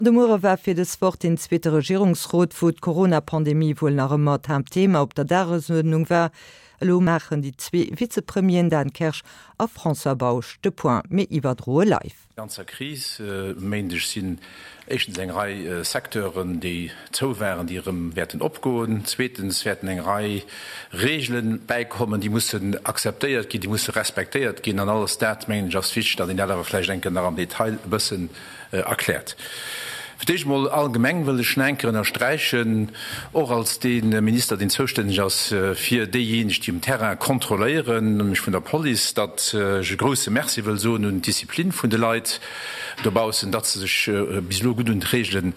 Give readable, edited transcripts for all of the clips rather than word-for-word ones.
De Muere war fir dës Woch deen zweete Regierungsrot, wou d'Corona-Pandemie wuel nach ëmmer d'Haaptthema op der Dagesuerdnung war. Elo maachen déi zwee Vizepremieren Dan Kersch a François Bausch de Point. Mir iwwerdroe live. Ganzer Kris. E Méindeg sinn éischtens eng Rei Secteuren, déi zou waren, déi erëm wäerten opgoen. Zweetens wäerten eng Rei Reegele bäikommen, déi mussen akzeptéiert ginn, déi musse respektéiert ginn. An alles dat, mengen ech, ass wichteg, datt een dat awer vläicht eng Kéier nach am Detail e bëssen erkläert. Fir d'éischt emol allgemeng wëll ech nach eng Kéier ënnersträichen, och als dee Minister, deen zoustänneg ass fir déijéineg, déi um Terrain kontrolléieren, nämlech vun der Police, datt ech e grouse Merci wëll soen un d'Disziplin vun de Leit dobaussen, datt se sech bis elo gutt un d'Reegele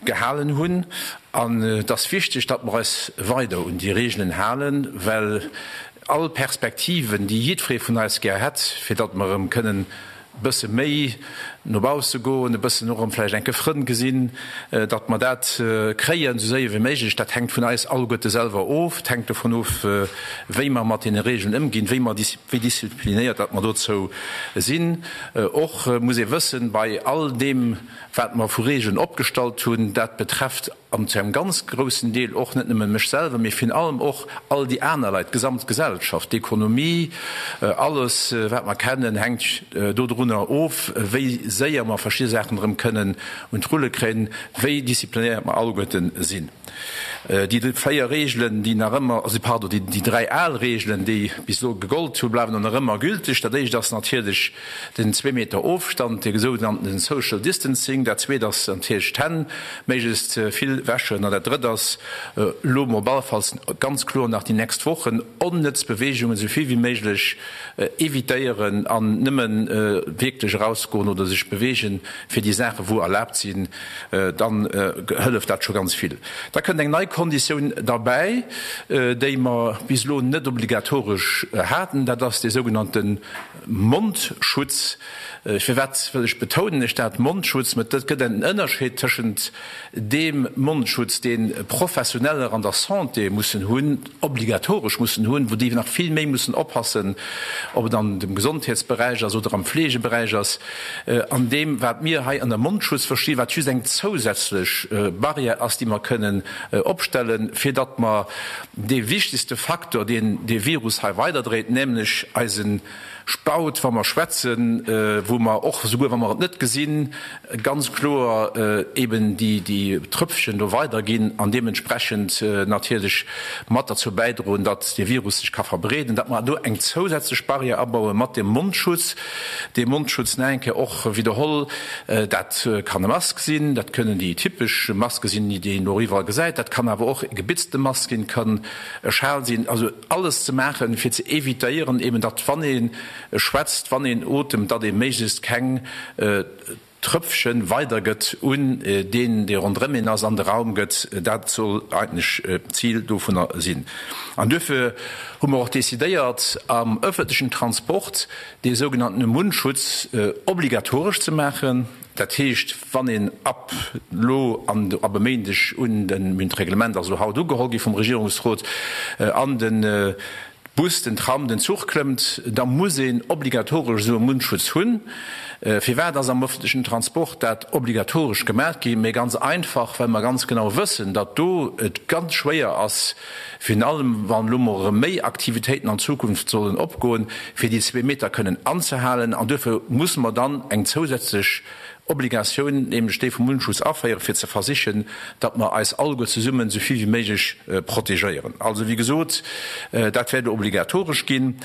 gehalen hunn. An et ass wichteg, datt mer eis weider un déi Reegelen halen, well all Perspektiven, déi jiddweree vun eis gär hätt, fir datt mer erëm kënnen e bësse méi no bausse goen, e bëssen och erëm vläicht enke Frënn gesinn, datt mer dat kréien esou séier wéi méiglech, dat hänkt vun eis alleguerte selwer of. Et hänkt dovun of, wéi mer mat deene Regeln ëmginn, wéi mer, wéi disziplinéiert datt mer dozou sinn. Och muss ee wëssen, bei all deem, wat mer vu Regeln opgestallt hunn, dat betrefft an zu engem ganz groussen Deel och net nëmme mech selwer, mee virun allem och all déi aner Leit, d'gesamt Gesellschaft, d'Ekonomie, alles wat mer kennen, hänkt dodrunner of, wéi séier mer verschidde Saachen erëm kënnen un d'Rulle kréien, wéi disziplinéiert mer alleguerte sinn. Déi 4 Reegelen, déi nach ëmmer, also pardon, déi 3 al Reegelen, déi bis elo gegollt hunn, bleiwen och nach ëmmer gülteg. Dat éischt ass natierlech den zwee Meter Ofstand, dee sougenannten Social Distancing. Dat zweet ass natierlech d'Hänn méiglechst vill wäschen. An dat drëtt ass elo mol op alle Falls ganz kloer nach déi nächst Wochen onnëtz Beweegungen esou vill wéi méiglech evitéieren an nëmmen wierklech erausgoen oder sech beweegen fir déi Saachen, wou erlaabt sinn. Dann hëlleft dat scho ganz vill. Da kënnt eng nei Konditioun derbäi, déi mer bis elo net obligatoresch haten, dat ass dee sougenannte Mondschutz. Firwat wëll ech betounen ech dat Mondschutz? Mä et gëtt en Ënnerscheed tëschent deem Mondschutz, dee Professioneller an der Santé mussen hunn, obligatoresch mussen hunn, wou déi nach vill méi mussen oppassen, ob et an dem Gesondheetsberäich ass oder am Fleegeberäich ass, an deem, wat mir hei ënner Mondschutz verstinn, wat just eng zousätzlech Barrière ass, déi mer kënnen opstellen, fir datt mer dee wichtegste Faktor, deen dee Virus hei weiderdréit, nämlech eise Spaut, wa mer schwätzen, wou mer och, souguer wa mer et net gesinn, ganz kloer eben déi Tröpfchen do weiderginn an deementsprechend natierlech mat derzou bäidroen, datt dee Virus sech ka verbreeden, datt mer do eng zousätzlech Barrière abaue mat dem Mondschutz. Dee Mondschutz, nach eng Kéier och widderholl, dat kann e Mask sinn, dat kënnen déi typesch Maske sinn, déi een elo iwwerall gesäit, dat kann awer och e gebitzte Mask sinn, kann e Schal sinn, also alles ze maachen, fir ze évitéieren eben, datt wann ee schwätzt, wann een otemt, datt ee méiglechst keng Tröpfchen weidergëtt un deen, dee ronderëm een ass, an de Raum gëtt. Dat soll eigentlech d'Zil dovunner sinn. An duerfir hu mer och decidéiert, am öffentlechen Transport dee sougenanntene Mundschutz obligatoresch ze maachen. Dat heescht, wann een ab elo an ab e Méindeg un, den, d'Reglement ass elo haut ugeholl gi vum Regierungsrot, an de Bus, den Tram, den Zuch klëmmt, da muss een obligatoresch esou e Mundschutz hunn. Firwat ass am öffentlechen Transport dat obligatoresch gemaach gi? Mee ganz einfach, well mer ganz genau wëssen, datt do et ganz schwéier ass, virun allem wann elo mol erëm méi Aktivitéiten an Zukunft sollen opgoen, fir déi zwee Meter kënnen anzehalen. An duerfir musse mer dann eng zousätzlech Obligatioun, nämlech déi vum Mundschutz, aféieren, fir ze versichen, datt mer eis alleguer zesummen esou vill wéi méiglech protegéieren. Also, wéi gesot, dat wäert elo obligatoresch ginn.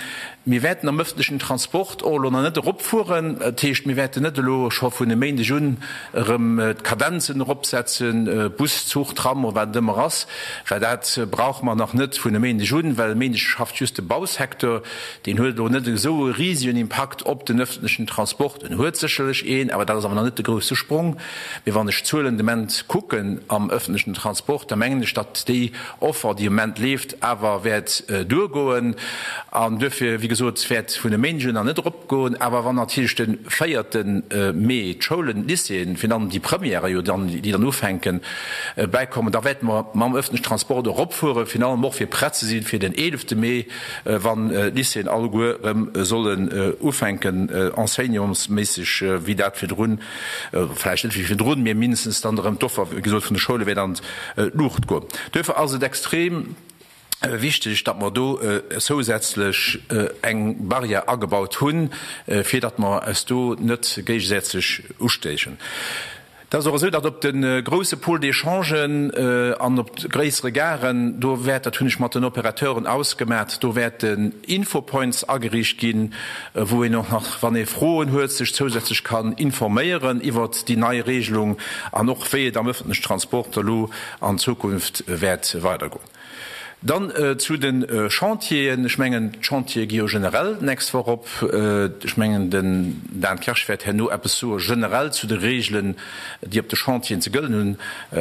Mir wäerten am öffentlechen Transport och elo nach net eropfueren. Dat heescht, mir wäerten net elo scho vun e Méindeg un erëm d'Kadenzen eropsetzen, Bus, Zuch, Tram oder wat et ëmmer ass, well dat brauche mer nach net vun e Méindeg un, well e Méindeg schafft just de Bausecteur. Deen huet elo net esou e risegen Impakt op den öffentlechen Transport. En huet sécherlech een, awer dat ass awer nach net de grousse Sprong. Mee wann ech d'Zuelen de Moment kucken am öffentlechen Transport, da mengen ech, datt déi Offer, déi am Moment leeft, awer wäert duergoen. An duerfir, wéi gesot, wäert vun e Méindeg un nach net eropgoen. Awer wann natierlech de véierte Mee d'Schoulen, d'Lycéeën, virun allem déi Premièrë jo dann, déi dann ufänken, bäikommen, da wäerte mer mam öffentlechen Transport eropfueren, virun allem och fir prett ze sinn fir den eelefte Mee, wann d'Lycéeën alleguer erëm sollen ufänken enseignementsméisseg, wéi dat virdrun. Vläicht net wéi virdrun, mee mindestens dann erëm d'Offer, wéi gesot, vun de Schoule wäert an d'Luucht goen. Duerfir ass et extrem wichteg, datt mer do zousätzlech eng Barrière agebaut hunn, fir datt mer eis do net géigesätzeg ustéichen. Et ass och esou, datt op de grouse Pôles d'échangen an op gréissere Garen, do wäert, dat hunn ech mat den Opérateuren ausgemat, do wäerten Infopoints ageriicht ginn, wou een och nach, wann ee Froen huet, sech zousätzlech kann informéieren iwwert déi nei Regelung an och wéi et am öffentlechen Transport elo an Zukunft wäert weidergoen. Dann zu de Chantieren. Ech mengen, d'Chantiere gi jo generell d'nächst Woch op. Ech mengen, den Dan Kersch wäert herno eppes soe generell zu de Regeln, déi op de Chantieren ze gëllen hunn,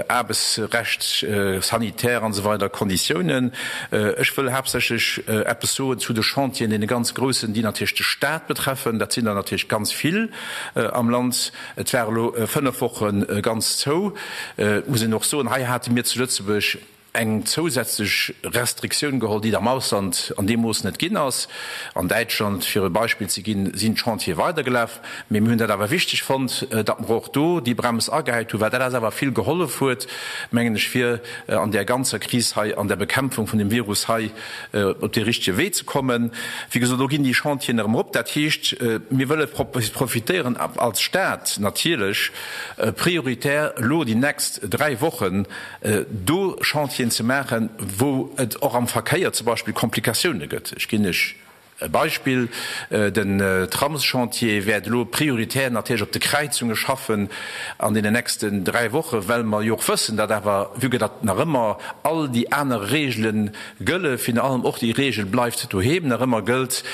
Aarbechtsrecht, sanitär an esou weider Konditiounen. Ech wëll haaptsächlech eppes soen zu de Chantieren, deene ganz groussen, déi natierlech de Stat betreffen. Dat sinn der natierlech ganz vill am Land. Et war elo 5 Woche ganz zou. Et muss een och soen, hei hate mir zu Lëtzebuerg eng zousätzlech Restriktioun geholl, déi et am Ausland an deem Mooss net ginn ass. An Däitschland, fir e Beispill ze ginn, sinn d'Chantiere weidergelaf. Mee mir hunn dat awer wichteg fonnt, datt mer och do déi Brems agehäit hunn, well dat eis awer vill gehollef huet, mengen ech, fir an där ganzer Kris hei, an der Bekämpfung vun dem Virus hei op dee richtege Wee ze kommen. Wéi gesot, elo ginn déi Chantieren erëm erop. Dat heescht, mir wëlle profitéieren als Stat natierlech prioritär elo déi nächst 3 Wochen, do Chantieren ze maachen, wou et och am Verkéier zum Beispill Komplikatioune gëtt. Ech ginn lech e Beispill, Den Tramschantier wäert elo prioritär natierlech op de Kräizunge schaffen an deenen nächsten 3 Wochen, well mer jo och wëssen, datt awer, vue que datt nach ëmmer all déi aner Regele gëlle, virun allem och déi Regel bleift doheem nach ëmmer gëllt,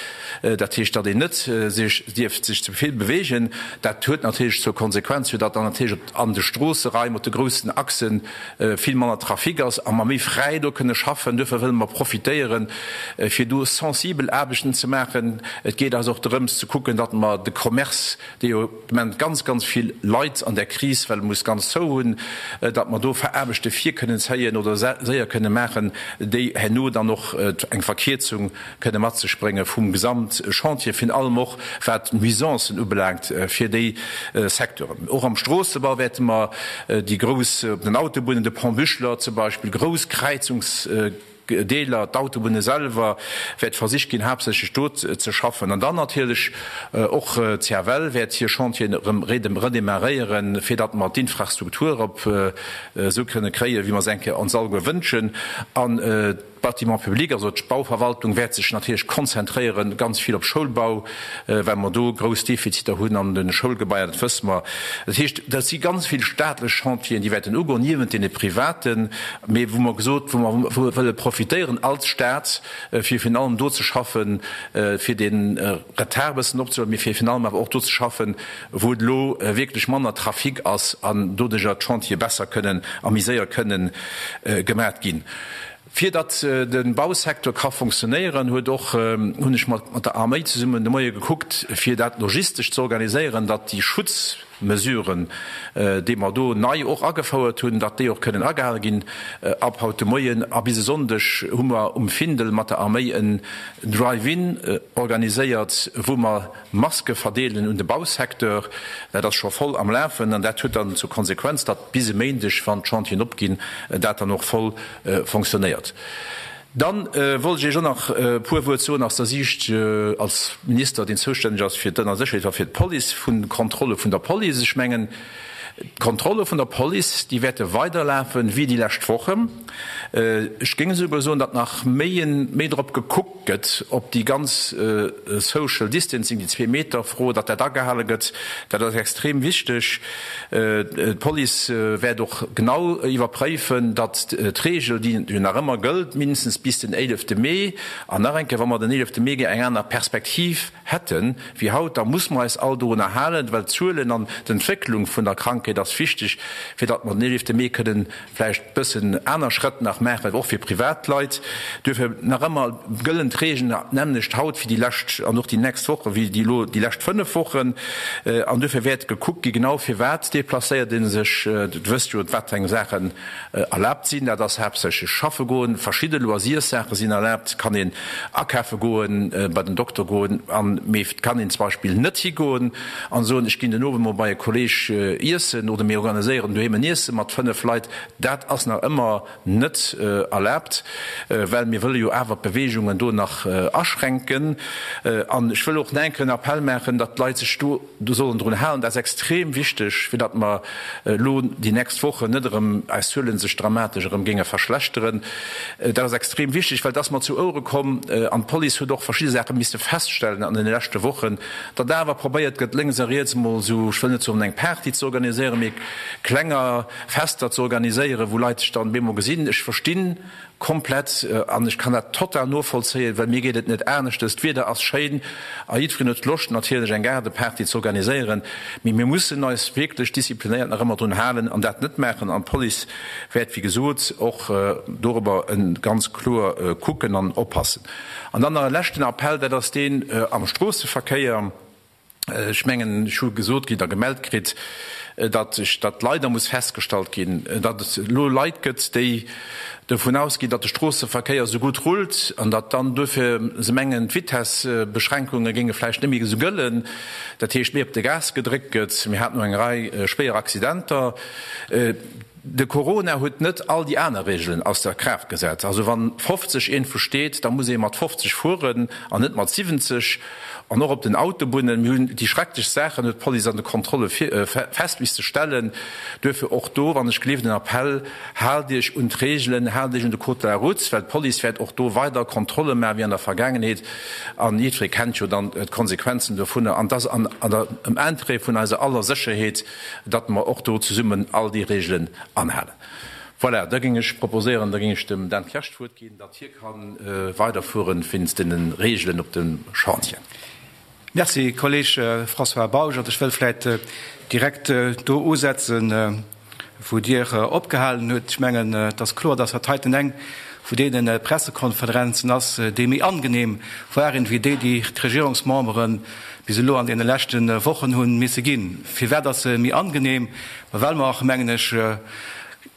dat heescht, datt een net sech dierft sech ze vill bewegen. Dat huet natierlech zur Konsequenz, fir datt dann natierlech op an de Stroosseraim, op de groussen Achsen vill manner Trafic ass a mer méi fräi do kënne schaffen. Duerfir wëlle mer profitéieren, fir do sensibel Aarbechten ze maachen. Et geet eis och drëms ze kucken, datt mer de Commerce, dee jo de Moment ganz, ganz vill leit an där Kris, well e muss ganz zou hunn, datt mer do Aarbechte vir kënnen zéien oder séier kënne maachen, déi herno dann och eng Verkierzung kënne mat sech brénge vum Gesamtchantier, virun allem och wat d'Nuisancen ubelaangt fir déi Secteuren. Och am Stroossebau wäerte mer déi grouss, op den Autobunnen, de Pont Buchler zum Beispill, grouss Kräizungsdeeler, d'Autobunne selwer, wäert versicht ginn, haaptsächlech do ze schaffen. An dann natierlech och d'CFL wäert hir Chantieren erëm redémarréieren, fir datt mer d'Infrastruktur op esou kënne kréien, wéi mer se eng Kéier ons alleguer wënschen. An D'Bâtiments publics, also d'Bauverwaltung, wäert sech natierlech konzentréieren, ganz vill op Schoulbau, well mer do grouss Defiziter hunn an de Schoulgebaier, dat wësse mer. Dat heescht, dat si ganz vill staatlech Chantieren, déi wäerten ugoen, niewent deene privaten, mee wou mer gesot, wou mer wëlle profitéieren als Stat, fir virun allem do ze schaffen, fir dee Retard e bëssen opzehuelen, mee fir virun allem awer och do ze schaffen, wou et elo wierklech manner Trafic ass an doduerjer d'Chantiere besser kënnen a méi séier kënnen gemat ginn. Fir datt de Bausecteur ka fonctionnéieren, huet och, hunn ech mat der Arméi zesummen de Moie gekuckt, fir dat logistesch ze organiséieren, datt déi Schutzmesuren, déi mer do nei och agefouert hunn, datt déi och kënnen agehale ginn. Ab haut de Moien a bis e Sonndeg hu mer um Findel mat der Arméi en Drive-in organiséiert, wou mer Maske verdeelen un de Bausecteur, dat ass scho voll am Lafen an dat huet dann zur Konsequenz, datt bis e Méindeg, wann d'Chantieren opginn, dat dann och voll fonctionnéiert. Dann wollt ech Iech och nach e puer Wuert soen aus der Siicht als Minister, deen zoustänneg ass fir d'Ënnersécherheet a fir d'Police, vun de Kontrolle vun der Police. Ech mengen, d'Kontrolle vun der Police, déi wäerte weiderlafen wéi déi lescht Wochen. Ech géing esouguer soen, datt nach méi méi drop gekuckt gëtt, ob déi ganz Social Distancing, déi Zwee-Meter-Fro, datt dat agehale gëtt. Dat ass extrem wichteg. D'Police wäert och genau iwwerpréifen, datt d'Reegel, déi jo nach ëmmer gëllt, mindestens bis den 11 Mee, an nach eng Kéier, wa mer den 11 Mee eng aner Perspektiv hätten wéi haut, da muss mer eis all dorunner halen, well d'Zuelen an d'Entwécklung vun der Krankheet. Krankheet ass wichteg, fir datt mer den 11 Mee kënnen vläicht bëssen aner Schrëtt nach maachen, och fir Privatleit. Duerfir nach ëmmer gëllen d'Regeln d'nämmlecht haut wéi déi lescht an och déi nächst Woche wéi déi elo déi lescht 5 Wochen. An duerfir wäert gekuckt gi genau firwat deplacéiert ee sech. Dir wësst jo, wat fir eng Saachen erlaabt sinn. Dat ass haaptsächlech schaffe goen, verschidde Loisirssaache sinn erlaabt, et kann een akafe goen, bei den Dokter goen, an mee et kann een zum Beispill net higoen an soen, ech ginn den Owend mol bei e Kolleeg iessen oder mir organiséieren doheem en Iesse mat 5 Leit. Dat ass nach ëmmer net erlaabt, well mir wëlle jo awer d'Beweegungen do nach aschränken. An ech wëll och nach eng Kéier en Appell maachen, datt d'Leit sech do Do sollen drun halen. Dat ass extrem wichteg, fir datt mer elo déi nächst Wochen net erëm eis Zuele sech dramatesch erëm géinge verschlechteren. Dat ass extrem wichteg, well et ass mer zu Ouere komm, an d'Police huet och verschidde Saache misste feststellen an deene leschte Wochen, datt awer probéiert gëtt, lénks a riets emol esou, ech wëll net soen eng Party ze organiséieren, mee klenger Fester ze organiséieren, wou Leit sech dann bemol gesinn. Ech verstinn Komplett, an ech kann dat total novollzéien, well mir geet et net aneschtes. D'Wieder ass schéin a jiddwereen huet Loscht natierlech eng Gaardeparty ze organiséieren, mee mir mussen eis wierklech disziplinéiert nach ëmmer drun halen an dat net maachen. An d'Police wäert wéi gesot och dorobber ganz kloer kucken an oppassen. An dann nach e leschten Appell, dat ass deen am Stroosseverkéier. Ech mengen, ech hu gesot kritt a gemellt kritt, datt ech, datt leider muss festgestallt ginn, datt et elo Leit gëtt, déi dovun ausginn, datt de Stroosseverkéier esou gutt rullt an datt dann duerfir se mengen, d'Vitessebeschränkunge géinge vläicht net méi esou gëllen, dat heescht méi op de Gas gedréckt gëtt. Mir haten elo eng Rei schwéier Accidenter. De Corona huet net all déi aner Regeln ausser Kraaft gesat. Also wann 50 iergendwou steet, da muss ee mat 50 fueren an net mat 70. An och op den Autobunnen. Mir hunn déi schrecklechst Saachen, huet d'Police an de Kontrolle fest misste stellen. Duerfir och do, wann ech gleef, den Appell, Haalt Iech un d'Regeln, haalt Iech un de Code de la route, well d'Police wäert och do weider Kontrolle maachen, wéi an der Vergaangenheet. An jiddweree kennt jo dann d'Konsequenzen dovunner. An et ass an der, am Interêt vun eiser aller Sécherheet, datt mer och do zesummen all déi Regelen anhalen. Voilà, da géing ech proposéieren, da géing ech dem Dan Kersch d'Wuert ginn, datt hie ka weiderfueren wéinst deene Regelen op dem Chantier. Merci, Kolleg François Bausch. Also ech wëll vläicht direkt do usetzen, wou Dir opgehalen hutt. Ech mengen, et ass kloer, datt dat heiten eng vun deene Pressekonferenzen ass, déi méi angenehm waren, wéi déi, déi d'Regierungsmembere bis elo an deene leschte Wochen hu misse ginn. Firwat ass se méi angenehm? Ma well mer, mengen ech,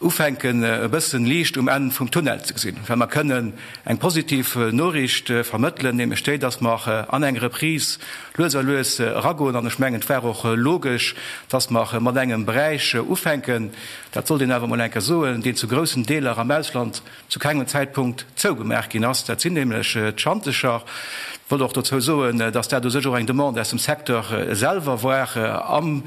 ufänken e bëssen Liicht um Enn vum Tunnel ze gesinn, well mer kënnen eng positiv Noriicht vermëttelen, nämlech déi, dass mer an eng Reprise lues a lues eragoen. An ech mengen, et war och logesch, dass mer mat engem Beräich ufänken, dat sollt een awer emol eng Kéier soen, deen zu groussen Deeler am Ausland zu kengem Zäitpunkt zougemaach ginn ass, dat sinn nämlech d'Schantecher. Ech wollt och dozou soen, dass dat u sech och eng Demande aus dem Secteur selwer war, am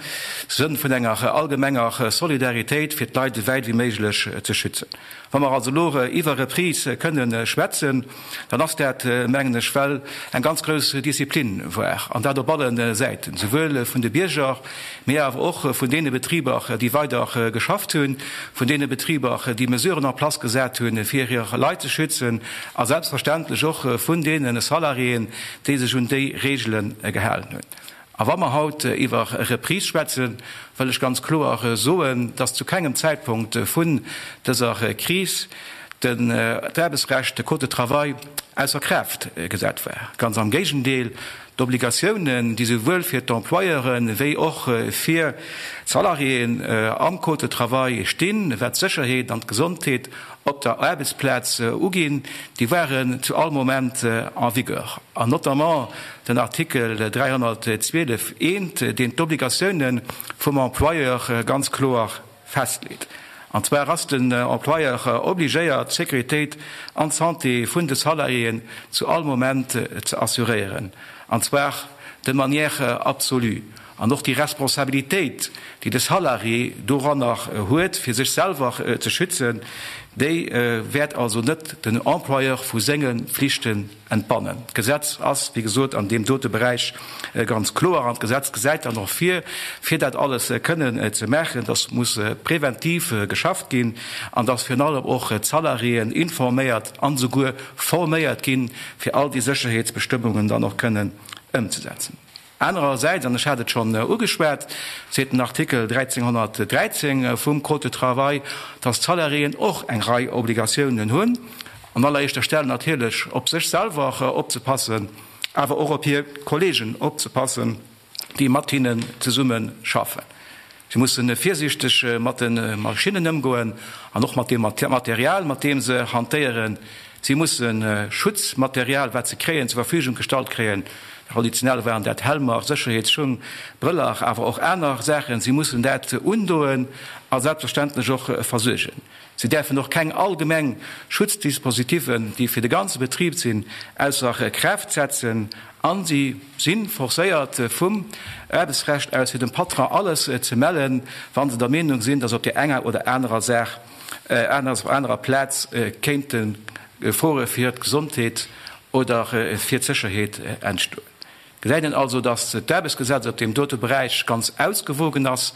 Sënn vun enger allgemenger Solidaritéit, fir d'Leit esou wäit wéi méiglech ze schützen. Wa mer also elo iwwer Reprise kënne schwätzen, dann ass dat, mengen ech, well eng ganz grouss Disziplin war, an dat op alle Säiten, souwuel vun de Bierger, mee awer och vun deene Betriber, déi weider geschafft hunn, vun deene Betriber, déi Mesuren en place gesat hunn, fir hir Leit ze schützen, a selbstverständlech och vun deene Salariéen, déi sech un déi Reegele gehalen hunn. A wa mer haut iwwer Reprise schwätzen, wëll ech ganz kloer soen, dass zu kengem Zäitpunkt vun dëser Kris d'Aarbechtsrecht, de Code de travail, ausser Kraaft gesat war. Ganz am Géigendeel, d'Obligatiounen, déi souwuel fir d'Employeure wéi och fir d'Salariéen am Code de travail stinn, wat d'Sécherheet an d'Gesondheet op der Aarbechtsplaz uginn, déi waren zu all Moment en vigueur. An notamment den Artikel 312 eent, deen d'Obligatiounen vum Employeur ganz kloer festleet. An zwar ass den Employeur obligéiert, d'Sécuritéit an d'Santé vun de Salariéen zu all Moment ze assuréieren, an zwar de manière absolue. An och déi Responsabilitéit, déi de Salarié doranner huet, fir sech selwer ze schützen, déi wäert also net den Employeur vu senge Flichten entbannen. D'Gesetz ass, wéi gesot, an deem dote Beräich ganz kloer. An d'Gesetz gesäit dann och vir, fir dat alles kënnen ze maachen, dass muss preventiv geschafft ginn an dass virun allem och d'Salariéen informéiert an esouguer forméiert ginn, fir all déi Sécherheetsbestëmmungen dann och kënnen ëmzesetzen. Anerersäits, an ech hat et schonn ugeschwat, seet den Artikel 1313 vum Code de travail, dass d'Salariéen och eng Rei Obligatiounen hunn, an alleréischter Stell natierlech op sech selwer opzepassen, awer och op hir Kollegen opzepassen, déi mat hinnen zesumme schaffen. Si musse virsiichteg mat de Maschinnen ëmgoen an och mat deem Material, mat deem se hantéieren. Si musse Schutzmaterial, wat se kréien, zur Verfügung gestallt kréien. Traditionell waren dat Helmer, Sécherheetsschung, Brëller, awer och aner Saachen. Si mussen dat undoen a selbstverständlech och versuergen. Si däerfen och keng allgemeng Schutzdispositiven, déi fir de ganze Betrib sinn, ausser Kraaft setzen. A si si forcéiert vum Aarbechtsrecht aus, fir dem Patron alles ze mellen, wa se der Meenung sinn, datt op där enger oder anerer Saach, anerer Plaz kéinte Gefore fir d'Gesondheet oder fir d'Sécherheet entstoen. Gesäit een also, datt d'Aarbechtsgesetz op deem dote Beräich ganz ausgewogen ass,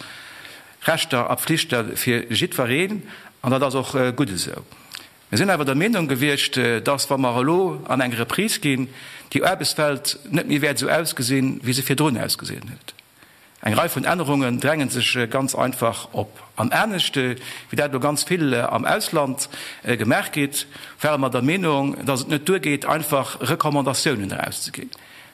Rechter a Pflichte fir jiddwereen, an dat ass och gutt esou. Mir sinn awer der Meenung gewiescht, datt, wa mer elo an eng Reprise ginn, déi Aarbechtswelt net méi wäert esou ausgesinn, wéi se virdrun ausgesinn huet. Eng Rei vun Ännerungen dränge sech ganz einfach op. An anescht wéi dat elo ganz vill am Ausland gemaach gétt, ware mer der Meenung, datt et net duergeet, einfach Recommandatiounen erauszeginn,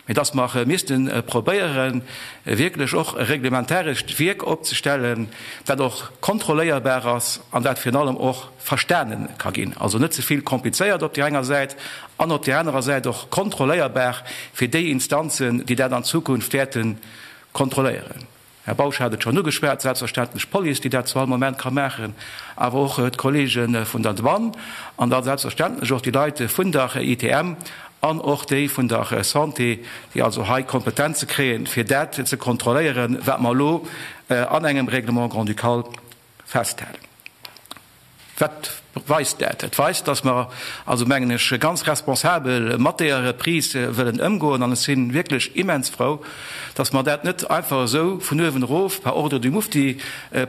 mee datt mer misste probéieren, wierklech och e reglementarescht Wierk opzestellen, dat och kontrolléierbar ass an dat virun allem och verstane ka ginn. Also net ze vill komplizéiert op där enger Säit an op där anerer Säit och kontrolléierbar fir déi Instanzen, déi dat an Zukunft wäerte kontrolléieren. Här Bausch hat et schonn ugeschwat, selbstverständlech d'Police, déi dat zu all Moment ka maachen, awer och d'Kollege vun der Douane an da selbstverständlech och déi Leit vun der ITM an och déi vun der Santé, déi also hei Kompetenze kréien, fir dat ze kontrolléieren, wat mer elo an engem Règlement grand-ducal festhalen. Wat weist dat? Et weist, dass mer also, mengen ech, ganz responsabel mat deeër Reprise wëllen ëmgoen. An ech si wierklech immens frou, dass mer dat net einfach esou vun uewen erof par ordre du mufti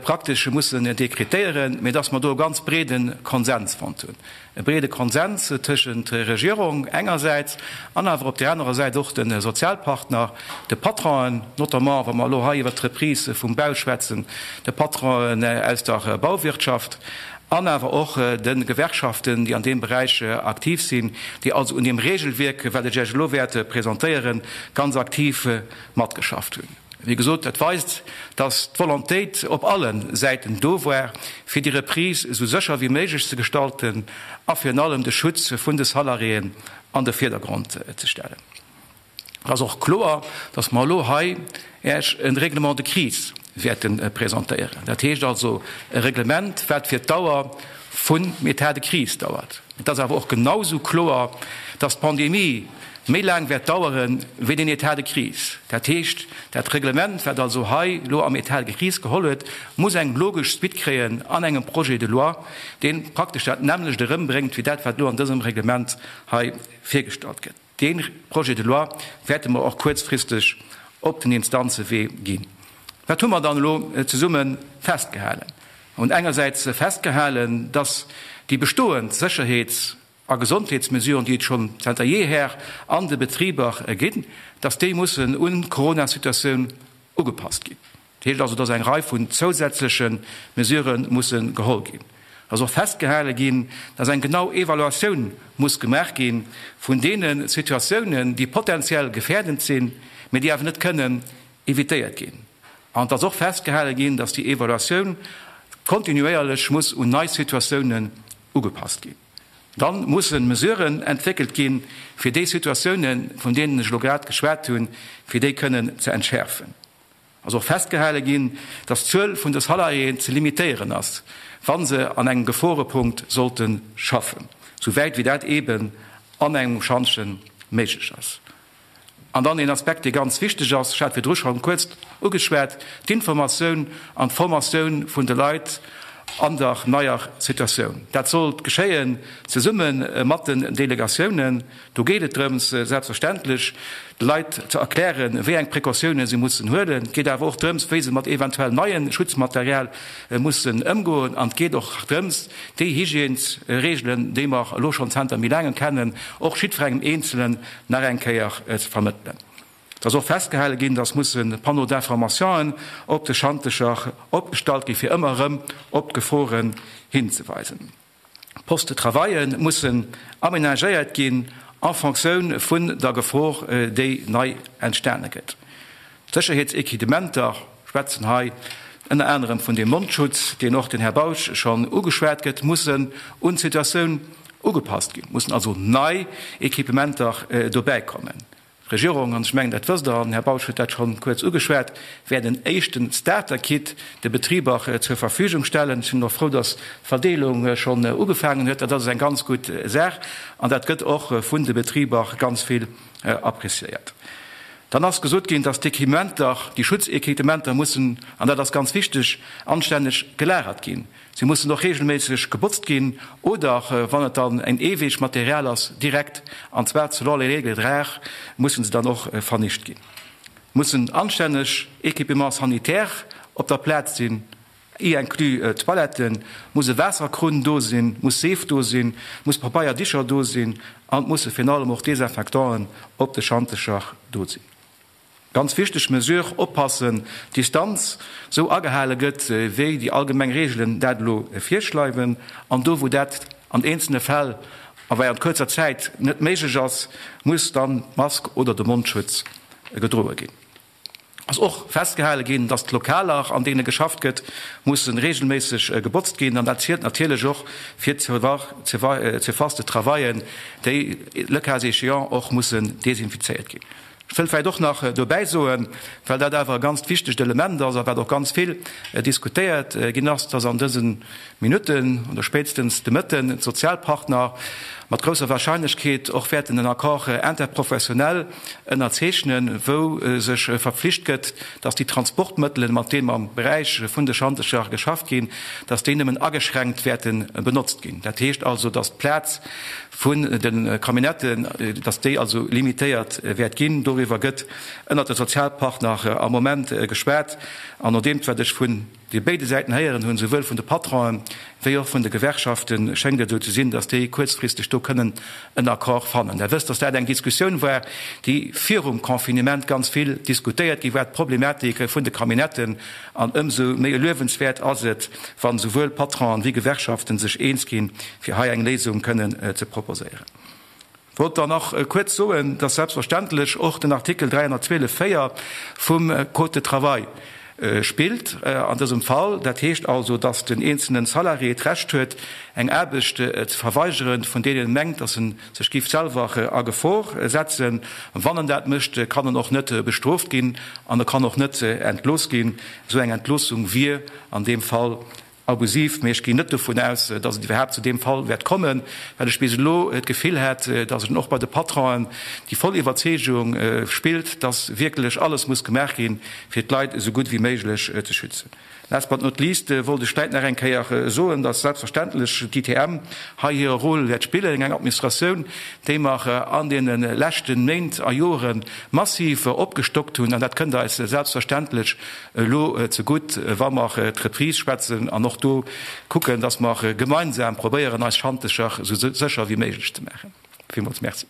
praktesch mussen dekretéieren, mä dass mer do e ganz breede Konsens fonnt hunn. E breede Konsens tëschent Regierung engersäits an awer op där anerer Säit och de Sozialpartner, de Patronen, notamment wa mer elo hei iwwert d'Reprise vum Bau schwätzen, de Patronen aus der Bauwirtschaft an awer och de Gewerkschaften, déi an deem Beräich aktiv sinn, déi also un deem Regelwierk, wat ech Iech elo wäert presentéieren, ganz aktiv matgeschafft hunn. Wéi gesot, dat weist, dass d'Volontéit op alle Säiten do war, fir déi Reprise esou sécher wéi méiglech ze gestalten a virun allem de Schutz vun de Salariéen an de Virdergrond ze stellen. Et ass och kloer, dass mer elo hei Iech e Règlement de crise wäerte presentéieren. Dat heescht also e Reglement, wat fir d'Dauer vum État de crise dauert. Et ass awer och genausou kloer, dass d'Pandemie méi laang wäert dauere wéi den État de crise. Dat heescht, dat Reglement, wat also hei elo am État de crise geholl huet, muss eng logesch Suite kréien an engem Projet de loi, dee praktesch dat nämmlecht erëmbréngt wéi dat, wat elo an dësem Reglement hei virgestallt gëtt. Dee Projet de loi wäerte mer och kuerzfristeg op den Instanzewee ginn. Wat hu mer dann elo zesumme festgehalen? Mer hunn engersäits festgehalen, dass déi bestoend Sécherheets a Gesondheetsmesuren, déi et schonn zanter jeeher an de Betriber ginn, dass déi mussen un d'Coronasituatioun ugepasst ginn. Dat heescht also, dass eng Rei vun zousätzleche Mesurë musse geholl ginn. Et ass och festgehale ginn, dass eng genau Evaluatioun muss gemaach gi vun deene Situatiounen, déi potenziell gefährdend sinn, mee déi awer net kënnen evitéiert ginn. An et ass och festgehale ginn, dass déi Evaluatioun kontinuéierlech muss un nei Situatiounen ugepasst ginn. Dann mussen Mesuren entwéckelt ginn, fir déi Situatiounen, vun deenen ech elo grad geschwat hunn, fir déi kënnen ze entschäerfen. Ass och festgehale ginn, dass d'Zuel vun de Salariéen ze limitéieren ass, wa se an engem Geforepunkt sollte schaffen, souwäit wéi dat eeben an engem Schantje méiglech ass. An dann een Aspekt, dee ganz wichteg ass, ech hat virdru schonn kuerz ugeschwat, d'Informatioun an d'Formatioun vun de Leit an der neier Situatioun. Dat sollt geschéien zesumme mat den Delegatiounen. Do geet et drëms, selbstverständlech de Leit ze erklären, wéi eng Precautiounen se mussen huelen. Et geet awer och drëms, wéi se mat eventuell neie Schutzmaterial mussen ëmgoen. An et geet och drëms, déi Hygiènesregelen, déi mer elo schonn zanter méi laangem kennen, och jiddwerengem Eenzelen nach eng Kéier ze vermëttelen. Et ass och festgehale ginn, dass musse Panneaux d'informationen op de Schantecher opgestallt gi fir ëmmer erëm op d'Geforen hinzeweisen. D'Postes de travaille mussen aménagéiert ginn en Fonctioun vun der Gefor, déi nei entstane gëtt. D'Sécherheetséquidementer, ech schwätzen hei ënner anerem vun deem Mondschutz, deen och den Här Bausch schonn ugeschwat gëtt, mussen un d'Situatioun ugepasst ginn, mussen also nei Equipementer dobäikommen. D'Regierung, an ech mengen, dat wësst Der, an den Här Bausch huet dat scho kuerz ugeschwat, wäert en éischten Starter-Kit de Betriber zur Verfügung stellen. Ech sinn och frou, dass d'Verdeelung schonn ugefaangen huet. Dat ass eng ganz gutt Saach an dat gëtt och vun de Betriber ganz vill appréciéiert. Dann ass gesot ginn, dass d'Equipementer, déi Schutzequipementer mussen, an dat ass ganz wichteg, anstänneg gelagert ginn. Si mussen och regelméisseg gebotzt ginn oder, wann et dann en Eeweegmaterial ass, direkt, an zwar selon les règles de l'art, mussen se dann och vernicht ginn. Mussen anstänneg Équipements sanitaires op der Plaz sinn, y inclus Toiletten, muss e Waasserkrunn do sinn, muss Seef do sinn, muss Pabeierdicher do sinn an et musse virun allem och Desinfectanten op de Schantecher do sinn. Ganz wichteg Mesure, Oppassen, d'Distanz sou agehale gëtt, wéi déi allgemeng Reegelen dat elo virschleiwen. An do, wou dat an eenzelne Fäll a während kuerzer Zäit net méiglech ass, muss dann d'Mask oder de Mondschutz gedroe ginn. Ass och festgehale ginn, dass d'Lokaler, an deene geschafft gëtt, musse reegelméisseg gebotzt ginn. An dat zielt natierlech och fir d'Surfaces de travaillen, déi le cas échéant och mussen desinfizéiert ginn. Ech wëll vläicht och nach dobäi soen, well dat awer e ganzt wichtegt Element ass a wat och ganz vill diskutéiert ginn ass, dass an dëse Minutten oder spéitstens de Mëtten d'Sozialpartner mat grousser Wahrscheinlechkeet och wäerten en Accord interprofessionnel ënnerzeechnen, wou sech verpflicht gëtt, dass déi Transportmëttelen, mat deem am Beräich vun de Schantecher geschafft ginn, dass déi nëmmen ageschränkt wäerte benotzt ginn. Dat heescht also, dass d'Plaz vun de Camionnetten, dass déi also limitéiert wäert ginn. Doriwwer gëtt ënnert de Sozialpartner am Moment geschwat. An nodeems wat ech vun de béide Säiten héieren hunn, souwuel vun de Patronen wéi och vun de Gewerkschaften, schéngt et esou ze sinn, dass déi kuerzfristeg do kënnen en Accord fannen. Der wësst, dass dat eng Diskussioun war, déi virum Confinement ganz vill diskutéiert gi war, d'Problematik vun de Camionnetten. An ëmsou méi luewenswäert ass et, wann esouwuel Patronen wéi Gewerkschaften sech eens ginn, fir hei eng Léisung kënnen ze proposéieren. Wollt dann nach kuerz soen, dass selbstverständlech och den Artikel 312 4 vum Code de travail spillt an dësem Fall. Dat heescht also, dass den eenzelnen Salarié d'Recht huet, eng Aarbecht ze verweigeren, vun deenen en mengt, dass en sech géif selwer a Gefor setzen. Wann en dat mécht, kann en och net bestrooft ginn an e kann och net entlooss ginn. Esou eng Entloossung wier an deem Fall abusiv. Mee ech ginn net dovun aus, datt et iwwerhaapt zu deem Fall wäert kommen, well ech bis elo d'Gefill hat, datt et och bei de Patronen déi voll Iwwerzeegung spillt, datt wierklech alles muss gemaach ginn, fir d'Leit esou gutt wéi méiglech ze schützen. Last but not least wollt ech vläit nach eng Kéier soen, dass selbstverständlech d'ITM hei hire Rôle wäert spillen, eng Administratioun, déi mer an deene leschte Méint a Jore massiv opgestockt hunn. An dat kënnt eis selbstverständlech elo zegutt, wa mer d'Reprise schwätzen an och do kucken, dass mer gemeinsam probéieren, eis Schantecher esou sécher wéi méiglech ze maachen. Villmools Merci.